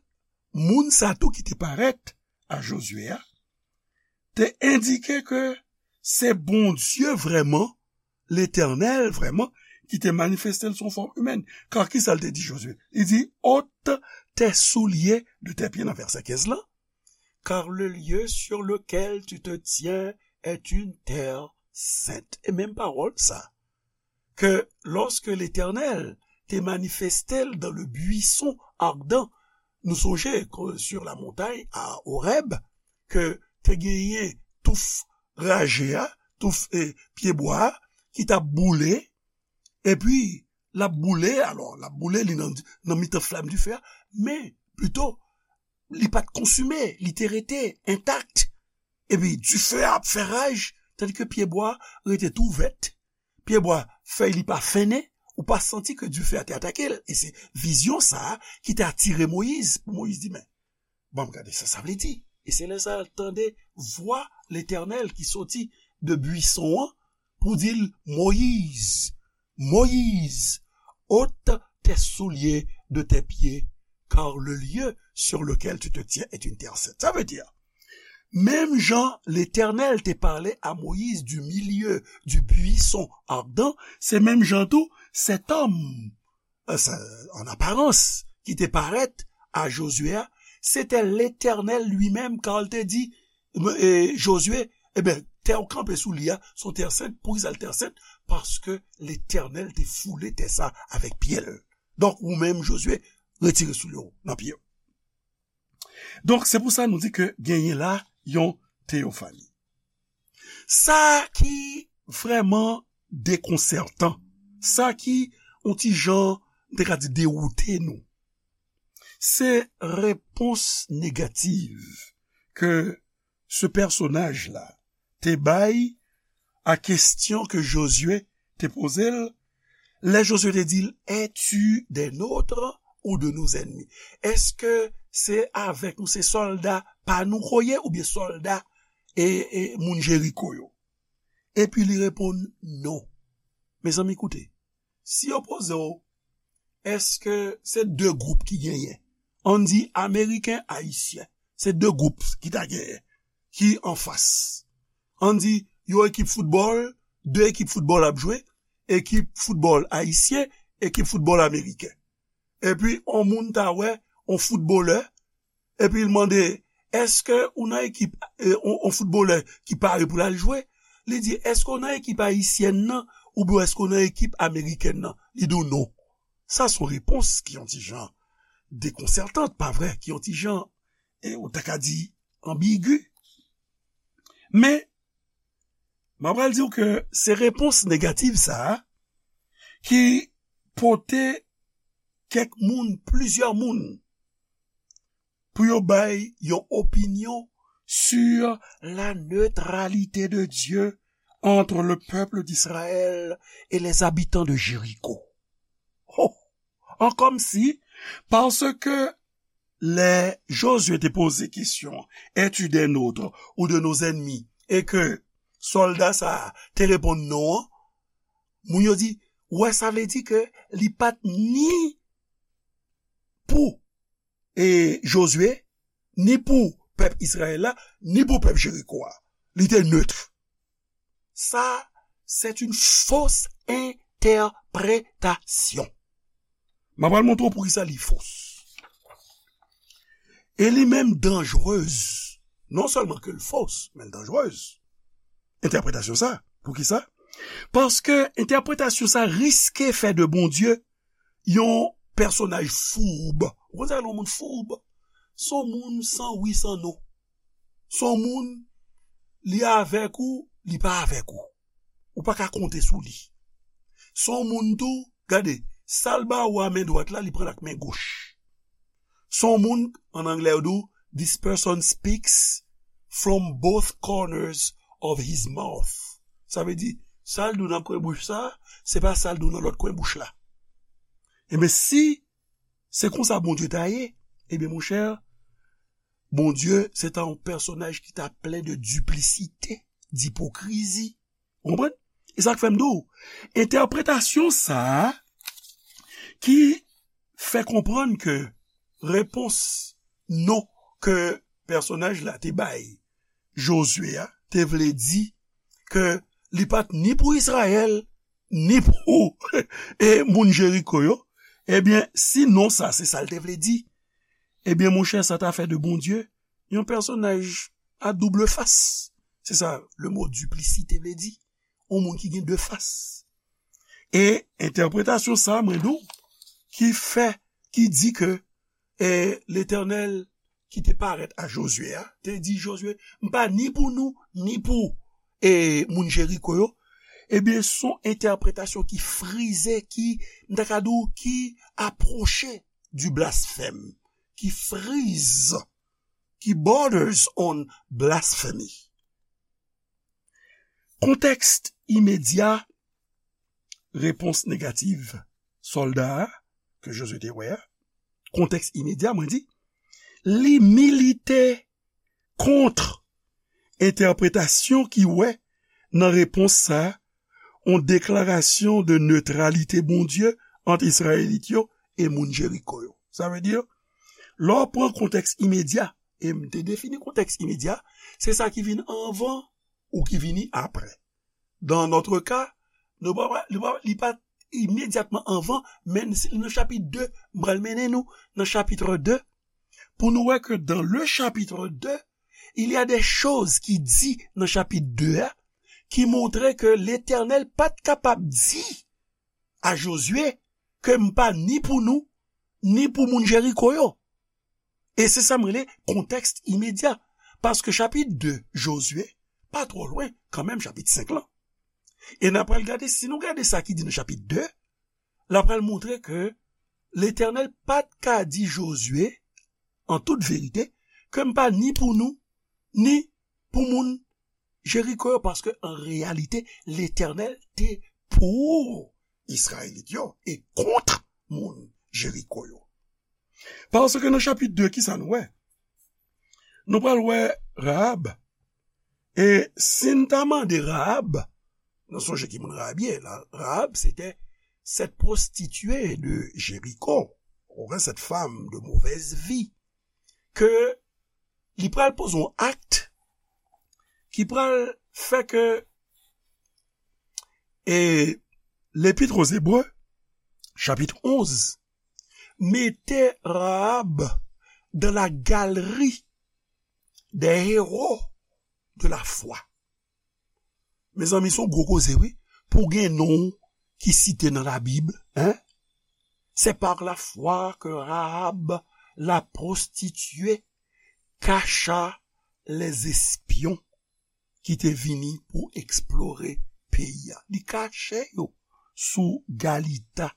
moun sa tou ki te parèt a Jozye a, te endike ke se Bondye vrèman, Letènèl vrèman, ki te manifeste l sou fòm imèn. Kar ki sa l te di Jozye? Li di, ôte tes souliers de tes pieds nan vèsè kenz lan. Car le lieu sur lequel tu te tiens est une terre sainte. E menm pawòl sa, ke lorsque l'Éternel te manifeste l dans le buisson ardent, nou sonje ke sur la montagne à Horeb, ke te genyen touf raje a, touf, e, pyebwa a, ki t ap boule, epi l ap boule, alò, l ap boule, li nan, nan mitan flam dife a, men, pito, li pa t konsime, li te rete entak. Epi, dife a ap fè raj, tandike pyebwa a rete tou vèt. Pyebwa, fèy li pa fennen, ou pa santi ke dife a te atake l. E se vizyon sa a ki te atire Moyiz, pou Moyiz di, men, ban m gade sa sa vle di. E se lè sa a l tande vwa Letènèl ki soti de bwison an pou di l, Moyiz, Moïse, ôte tes souliers de tes pieds, car le lieu sur lequel tu te tiens est une terre sainte. Sa vle di, menm jan Letènèl te pale a Moyiz du milieu du buisson ardent, se menm jan tou, cet homme, euh, sa, en apparence, ki te parèt a Jozye a, se te Letènèl li menm, kan l te di, e, Jozye, e ben, tè w kanpe sou li a, se yon tè sent, poukisa l tè sent? Paske Letènèl te foule tè sa avèk pye l. Donk, ou menm, Jozye, retire soulye w nan pye w. Donk, se pou sa nou di ke genyen la yon teyofani. Sa ki vrèman dekonsètan, sa ki yon ti jan, m te ka di, dewoute nou, se repons negatif ke se pèsonaj la te bay a kesyon ke Jozye te poze l, lè Jozye te di l, es-tu des nôtres ou de nos ennemis? Èske se avèk nou, se sòlda pa nou ke w ye, oubyen sòlda, e, e moun Jeriko yo? Epi li reponn, non. Mezanmi, koute. Si yo poze w, èske se de gwoup ki genyen? Ann di Ameriken, Ayisyen. Se de gwoup ki ta genyen, ki anfas. Ann di, yon ekip foutbòl, de ekip foutbòl ap jwe, ekip foutbòl ayisyen, ekip foutbòl ameriken. Epi, yon moun ta wè, yon foutbolè, epi l mande, èske ou nan ekip, e, yon, yon foutbolè ki pare pou l al jwe? Li di, èske w nan ekip ayisyèn nan, oubyen èske w nan ekip amerikèn nan? Li di w non. Sa se yon repons ki yon ti jan dekonsètan, pa vre, ki yon ti jan, e, ou ta ka di, anbigi. Men, m ap pral di w ke se repons negatif sa a ki pote kèk moun, plizyè moun, pou yo bay yon opinyon sur la neutralité de Dieu entre le peuple d'Israël et les habitants de Jéricho. Oh! An kòmsi, paske lè Jozye te poze kesyon, es-tu des nôtres ou de nos ennemis? E ke sòlda sa a te reponn non an, moun yo di, wè, sa vle di ke li pa t ni pou e Jozye, ni pou pèp Izrayèl la, ni pou pèp Jeriko a. Li te neutre. Sa, c'est une fausse interprétation. M ap pral montre w poukisa li fos. E li menm danjrez. Non sèlman ke l fos, men l danjrez. Entèpretasyon sa. Poukisa? Paske entèpretasyon sa riske fè de Bondye yon pèsonaj foub. Ou konn sa yon moun foub? Se yon moun san wi, san non. Se yon moun, li avèk ou, li pa avèk ou. Ou pa ka konte sou li. Se yon moun tou, gade, sa l ba ou a men dwat la, li pran l ak men goch. Se yon moun, an anglè yo di w, this person speaks from both corners of his mouth. Sa vle di, sa l di w nan kwen bouch sa, se pa sa l di w nan lòt kwen bouch la. Ebyen, si se konsa Bondye ta ye, ebyen, monchè, Bondye, se ta yon pèsonaj ki ta plen de diplisite, dipokrizi. Ou konprann? E sa k fè m di w, entèpretasyon sa a ki fè konprann ke repons non ke pèsonaj la te bay Jozye a te vle di ke li pa t ni pou Izrayèl, ni pou e moun Jeriko yo. Ebyen, si non sa, se sa l te vle di, ebyen, monchè, sa ta fè de Bondye yon pèsonaj a double fas. Se sa le mo diplisite vle di. Yon moun ki gen de fas. E entèpretasyon sa, mwen di w, ki fè, ki di ke, e, Letènèl ki te parèt a Jozye a, te di Jozye, m pa ni pou nou, ni pou, e, moun Jeriko yo. Ebyen, se yon entèpretasyon ki frize, ki, m ta ka di w, ki apwoche du blasphème, ki frize, ki borders on blasphemy. Kontèks imedya repons negatif sòlda a, ke Jozye te wè a, kontèks imedya, mwen di, li milite kont entèpretasyon ki wè nan repons sa a, yon deklarasyon de netralite Bondye ant Izrayelit yo e moun Jeriko yo. Sa vle di, lè w pran kontèks imedya, e m te defini kontèks imedya, se sa ki vin anvan ou ki vini apre. Dans notre cas, nou pa, li pa, li pa imedyatman anvan, men si, nan chapit de, m pral mennen nou nan chapit de, pou nou wè ke dans le chapitre deux, il y a des choses ki di nan chapit de a, ki montre ke Letènèl pa t kapab di a Jozye ke m pa ni pou nou, ni pou moun Jeriko yo. E se sa m rele kontèks imedya. Paske chapit de Jozye, pa twò lwen, kanmenm chapit senk lan. E n a pral gade, si nou gade sa ki di nan chapit de, l a pral montre ke Letènèl pa t ka di Jozye, an tout verite, ke m pa ni pou nou, ni pou moun Jeriko yo, paske an reyalite, Letènèl te pou Izrayelit yo e kont moun Jeriko yo. Paske nan chapit de, ki sa nou wè? Nou pral wè Rahab. E si n ta mande Rahab, nou sonje ki moun Rahab ye, la, Rahab, c'était cette prostituée de Jéricho, ou bien cette femme de mauvaise vie, ke li pral poze yon akt ki pral fè ke, e, Lepit o Zebre, chapit onz, mete Rahab dans la galerie des héros de la foi. Mezanmi, se yon gwo koze, wi. Pou gen non ki site nan Labib, hein? C'est par la foi que Rahab, la prostituée, cacha les espions ki te vini pou eksplore peyi a. Li kache yo sou galita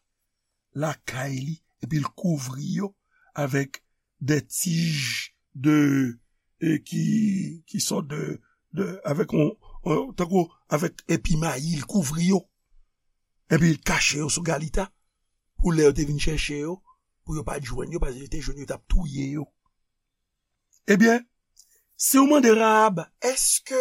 lakay li, epi l kouvri yo avèk de tij de, e, ki, ki sòt de, de, avèk on, on, tankou avèk epi mayi, l kouvri yo. Epi l kache yo sou galita, pou lè yo te vin chèche yo, pou yo pa t jwenn yo, paske yo te jwenn yo, yo t ap touye yo. Ebyen, si w mande Rahab, èske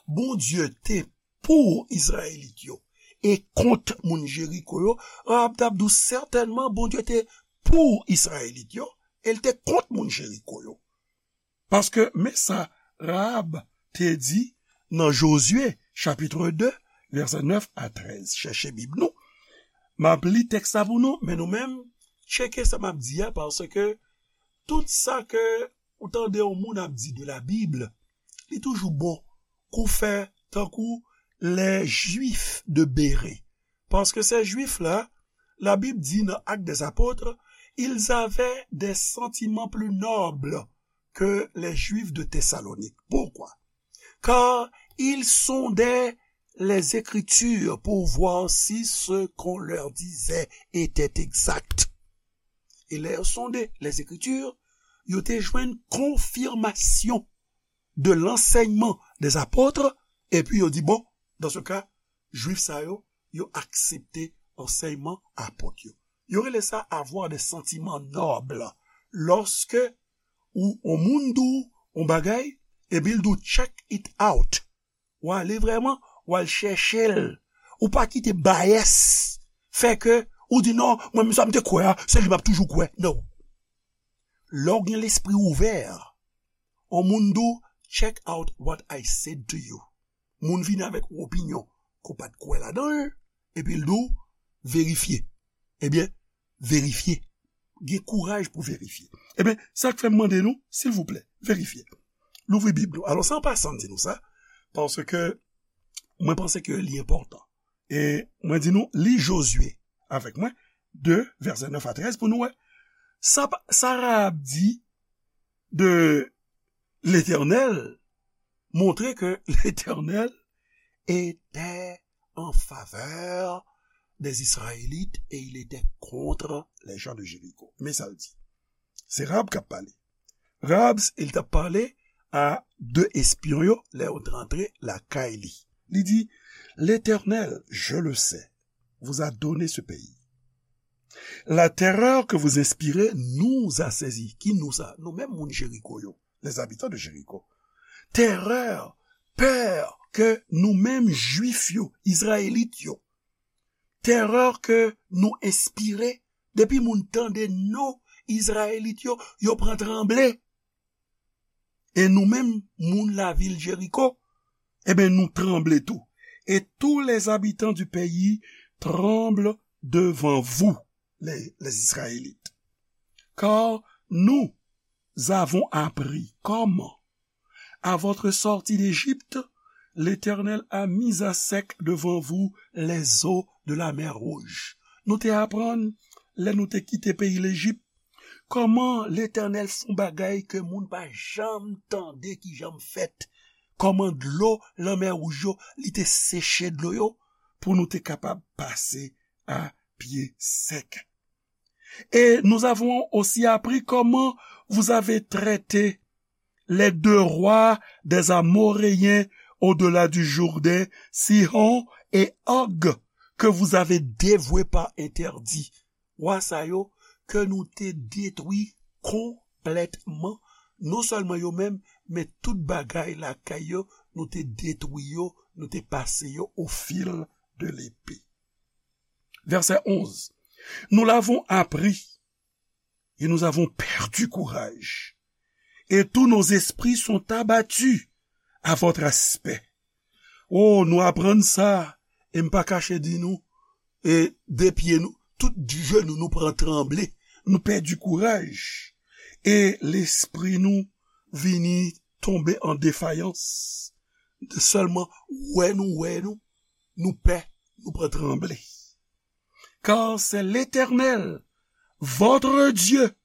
Bondye te pou Izrayelit yo e kont moun Jeriko yo, Rahab t ap di w sètènman Bondye te pou Izrayelit yo e l te kont moun Jeriko yo. Paske men sa Rahab te di nan Jozye chapit de, vèsè nèf a trèz. Chèche Bib nou. M ap li tèks la pou nou, men nou menm, tcheke sa m ap di a, paske tout sa ke ou tande yon moun ap di de la Bib, li toujou bon kou fè tankou les Juifs de Béré. Paske se Jwif la, la Bib di nan Actes des Apôtres, ils avaient des sentiments plus nobles que les Juifs de Thessalonique. Pourquoi? Car ils sondaient les Écritures pour voir si ce qu'on leur disait était exact. E lè yo sonde les Écritures, yo te jwenn konfimasyon de l'enseignement des apôtres, epi yo di, bon, dans ce cas, Jwif sa yo, yo aksepte ansèyman apot yo. Yo rele sa avoir des sentiments nobles. Lòske ou, yon moun di w yon bagay, epi l di w check it out. W ale vrèman, w al chèche l. Ou pa kite bias fè ke ou di non, mwen menm sa m te kwè a, se li m ap toujou kwè. Non. Lè w gen lespri ouvè, yon moun di w check out what I said to you. Moun vini avèk yon opinyon ke w pa t kwè ladan l, epi l di w verifye. Ebyen, verifye. Gen kouraj pou verifye. Ebyen, sa k fè m mande nou, silvouplè, verifye. Louvri Bib nou. Alò, se an pasan m di nou sa, paske mwen panse ke li enpòtan. E mwen di nou, li Jozye avèk mwen, de, vèsè nèf a trèz, pou nou wè. Sa, pa- sa Rahab di de Letènèl montre ke Letènèl était en faveur des Israélites et il était contre les gens de Jéricho. Men sa l di. Se Rahab k ap pale. Rahab, li t ap pale a de espyon yo lè yo t rantre lakay li. Li di, L'Éternel, je le sais, vous a donné ce pays. La terreur que vous inspirez nous a saisis. Ki nou sa? Nou menm moun Jeriko yo, les habitants de Jéricho. Terè, pè ke nou menm Jwif yo, Izrayelit yo, terè ke nou enspire, depi moun tande non Izrayelit yo, yo pran tranble. E nou menm, moun lavil Jeriko, ebyen, nou tranble tou. Et tous les habitants du pays tremblent devant vous, les, les Israélites. Car nous avons appris comment, à votre sortie d'Égypte, l'Éternel a mis à sec devant vous les eaux de la mer Rouge. Nou te aprann, lè nou te kite peyi Lejip, kòman Letènèl fè yon bagay ke moun pa janm tande ki janm fèt, kòman dlo Lanmè Wouj yo, li te seche dlo yo, pou nou te kapab pase a pye sèk. Et nous avons aussi appris comment vous avez traité les deux rois des Amoréens au-delà du Jourdain, Sihon et Og, que vous avez dévoués par interdit. Wa sa yo, ke nou te detwi konplètman, non sèlman yo menm, men tout bagay lakay yo, nou te detwi yo, nou te pase yo au fil de l'épée. Verset onze. Nous l'avons appris, et nous avons perdu courage, et tous nos esprits sont abattus à votre aspect. Oh, nou aprann sa, e m pa kache di nou, e de pye nou, tout jenou nou pran tranble, nou pèdi kouraj, e lespri nou vini tonbe an defayans. Sèlman wè nou, wè nou, nou pè, nou pran tranble. Car c'est l'Éternel, votre Dieu,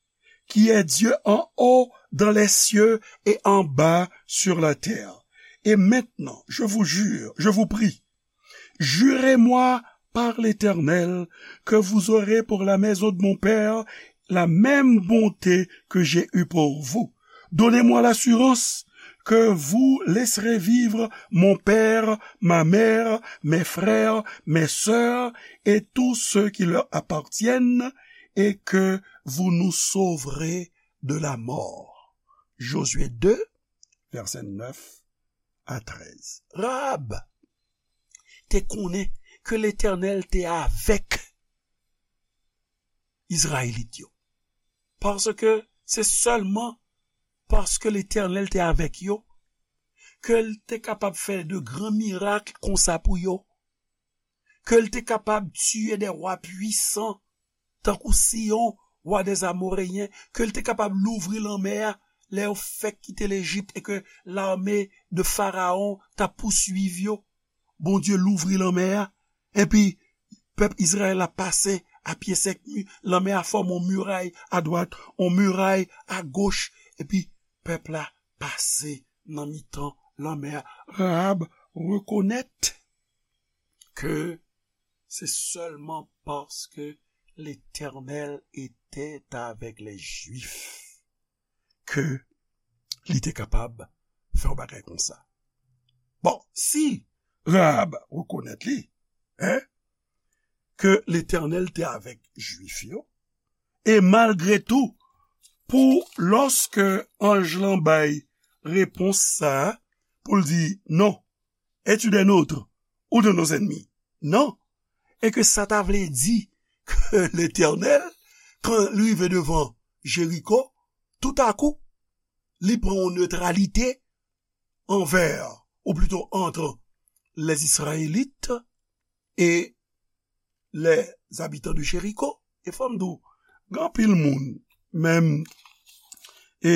qui est Dieu en haut dans les cieux et en bas sur la terre. Et maintenant, je vous jure, je vous prie, jurez-moi par l'Éternel que vous aurez pour la maison de mon père la même bonté que j'ai eue pour vous. Donnez-moi l'assurance que vous laisserez vivre mon père, ma mère, mes frères, mes sœurs et tous ceux qui leur appartiennent, et que vous nous sauverez de la mort. Jozye de, vèsè nèf a trèz. Rahab te konnen ke Letènèl te avèk Izrayelit yo. Paske se sèlman paske Letènèl te avèk yo ke l te kapab fè de gran mirak konsa pou yo, ke l te kapab tiye de wa pwisan, tankou Siyon, wa dè Amoreyen, ke l te kapab louvri lanmè a, lè yo fèk kite Lejip e ke lame de Farawon t ap pouswiv yo. Bondye louvri lanmè a, epi pèp Izrayèl la pase a pye sèk, mi-, lanmè a fòme yon miray adwat, yon miray agoch, epi pèp la pase nan mitan lanmè a. Rahab rekonèt ke se sèlman paske Letènèl etè avèk lè Jwif ke li te kapab fè yon bagay konsa. Bon, si Rahab rekonèt li, en, ke Letènèl te avèk Jwif yo, e malgre tou, pou lòske anj lan bay repons sa a, pou l di, "Non, es-tu des nôtres ou de nos ennemis?" Non. E ke sa ta vle di ke Letènèl, kan li rive devan Jeriko, toutakou, li pran yon netralite anvè, ou plito ant, les Israélites e les habitants de Jéricho. E fò m di w, gen anpil moun, menm, e,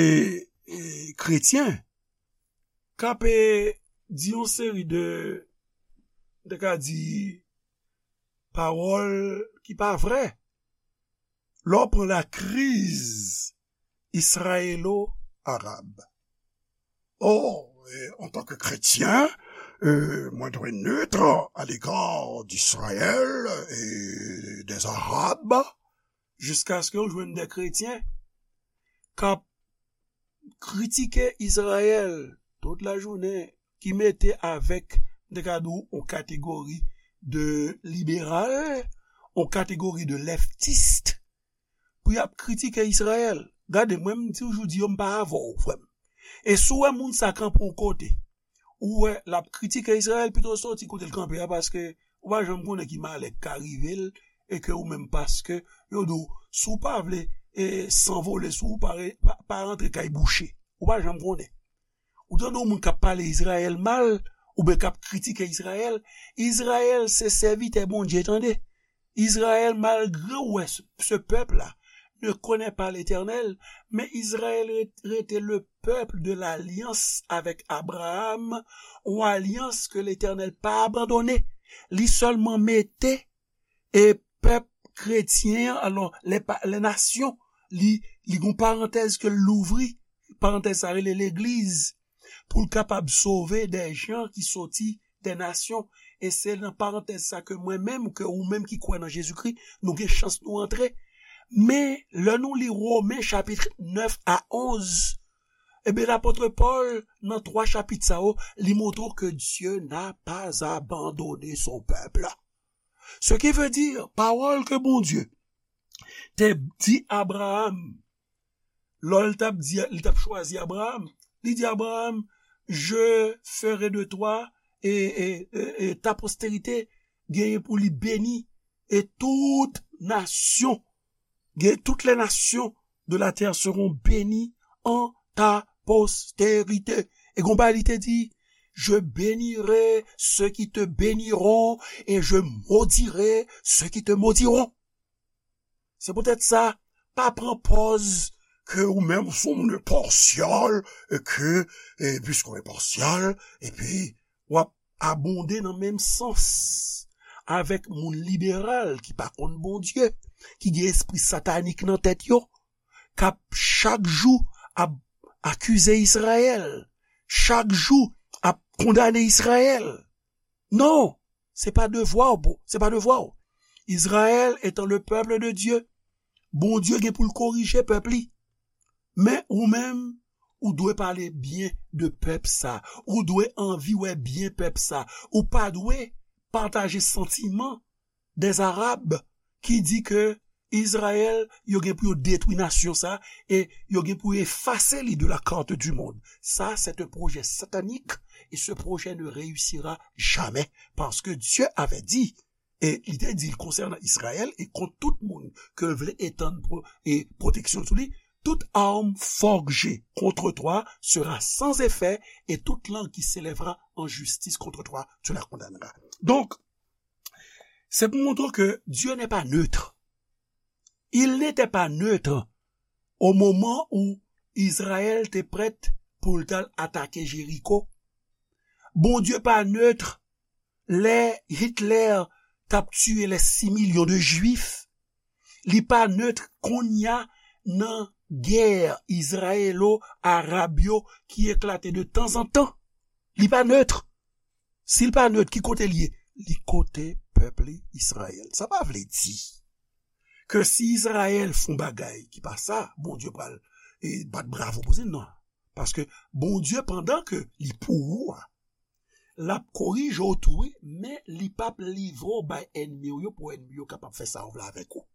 e kretyen, k ap, e, di yon seri de, m te ka di, pawòl ki pa vrè. Lè w pran lakriz israyelo-arab. Oh, e, antanke kretyen, e, mwen dwe neutre à l'égard d'Israël et des Arabes. Jiskaske w jwenn de kretyen k ap kritike Izrayèl tout lajounen, ki mete avèk, m te ka di w, yon kategori de liberal, yon kategori de leftis, pou y ap kritike Izrayèl. Gade, mwen, m toujou di yo, m pa avè w, frè m. E si w wè moun sa kanpe yon kote, ou wè l ap kritike Izrayèl, pito soti kote l kanpe a, paske ou pa janm konnen ki malè k ka rive l, e ke ou menm, paske yo di w, si w pa vle, e, sanvole, si w pa re-, pa, pa rantre kay bouche, ou pa janm konnen. Ou tande yon moun k ap pale Izrayèl mal, oubyen k ap kritike Izrayèl, Izrayèl se sèvitè Bondye, tande. Izrayèl, malgre w wè se, ce peuple-là ne connaît pas l'Éternel, men Izrayèl re-, rete le peuple de l'alliance avec Abraham, yon alyans ke Letènèl pa abandone. Li sèlman mete, e, pèp kretyen an, alò, les pa-, les nations, li, li gon parantèz ke l louvri, parantèz sa rele legliz, pou l kapab sove de jan ki soti de nasyon. E se nan parantèz sa ke mwen menm, ke ou menm ki kwè nan Jezikri, nou gen chans nou antre. Men, lè nou li Women chapit nèf a onz, ebyen, lapot Pòl, nan twa chapit sa yo, li montre w ke Dieu n'a pas abandonné son peuple. Ce qui veut dire, pawòl ke Bondye te di Abraham, lè l t ap di, li t ap chwazi Abraham, li di Abraham, "Je ferai de toi et, et, et, et ta postérité", genyen pou li beni, e tout nasyon, gen, toutes les nations de la terre seront bénies en ta postérité. E gon bagay li te di, "Je bénirai ceux qui te béniront et je maudirai ceux qui te maudiront." Se poutèt sa, pa pran pòz ke ou menm ou se yon moun enpasyal, e ke, e piske w enpasyal, epi w ap abonde nan menm sans avèk moun liberal ki pa konn Bondye, ki gen espri satanik nan tèt yo, k ap chak jou ap akize Izrayèl, chak jou ap kondane Izrayèl. Non, se pa devwa w, bro, se pa devwa w. Izrayèl etan le peuple de Dieu, Bondye gen pou l korije pèp li. Men ou menm, ou dwe pale byen de pèp sa. Ou dwe anvi wè byen pèp sa. Ou pa dwe pataje santiman des Arabes ki di ke Izrayèl, yo gen pou yo detwi nasyon sa, e yo gen pou yo efase li de la carte du monde. Ça, c'est un projet satanique, et ce projet ne réussira jamais, parce que Dieu avait dit, e li te di l konsènan Izrayèl, e kont tout moun ke l vle etann pro, e pwoteksyon sou li, toute arme forgée contre toi sera sans effet, et toute langue qui s'élèvera en justice contre toi, tu la condamneras. Donk, c'est pour montrer que Dieu n'est pas neutre. Il n'était pas neutre au moment où Izrayèl te prèt pou l t al atake Jeriko. Bondye pa nèt lè Hitler t ap tiye les six millions de Juifs. Li pa nèt kounye a nan gè izrayelo-arab yo ki eklate de tanzantan. Li pa nèt. Si l pa nèt, ki kote l ye? Li kote pèp li, Izrayèl. Sa pa vle di ke si Izrayèl fè yon bagay ki pa sa, Bondye pral e, bat bravo pou li, non. Paske Bondye, pandan ke li pou ou a, l ap korije w tou, wi, men li p ap livre w bay ènmi w yo pou ènmi yo kapab fè sa yo vle avèk ou.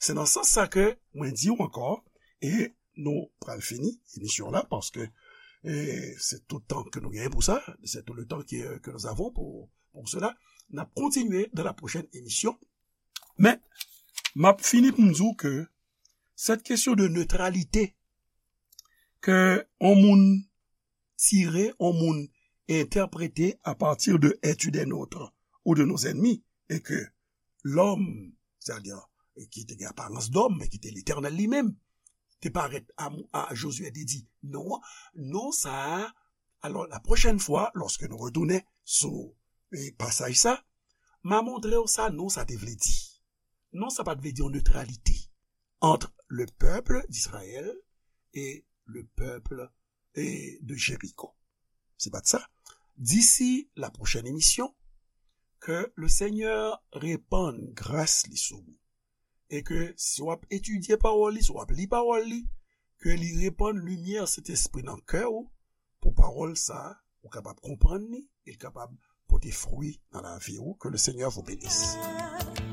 Se nan sans sa ke mwen di w ankò, e nou pral fini emisyon la, paske e, se tout tan ke nou genyen pou sa, c'est tout le temps que, que nous avons pour, pour cela. N ap kontinye dans la prochaine émission. Men, m ap fini pou m di w ke cette question de neutralité ke yon moun tire, yon moun entèprete à partir de es-tu des nôtres ou de nos ennemis, e ke lòm, c'est-à-dire, ki te gen aparans dòm, men ki te Letènèl li menm, te parèt a, a Josué, te di, non, non sa a. Alò, la pwochèn fwa, lòske nou retounen sou e, pasaj sa, m a montre w sa non sa te vle di. Non sa pa t vle di yon neutralité entre le peuple d'Israël et le peuple e, de Jéricho. Se pa t sa. D'ici la prochaine émission, ke le Senyè repann gras li sou ou. E ke si w ap etidye pawòl li, si w ap li pawòl li, ke li repann limyè Sentespri nan kè w, pou pawòl sa a, ou kapab konprann li, e l kapab pote fwi nan lavi w. Que le Seigneur vous bénisse.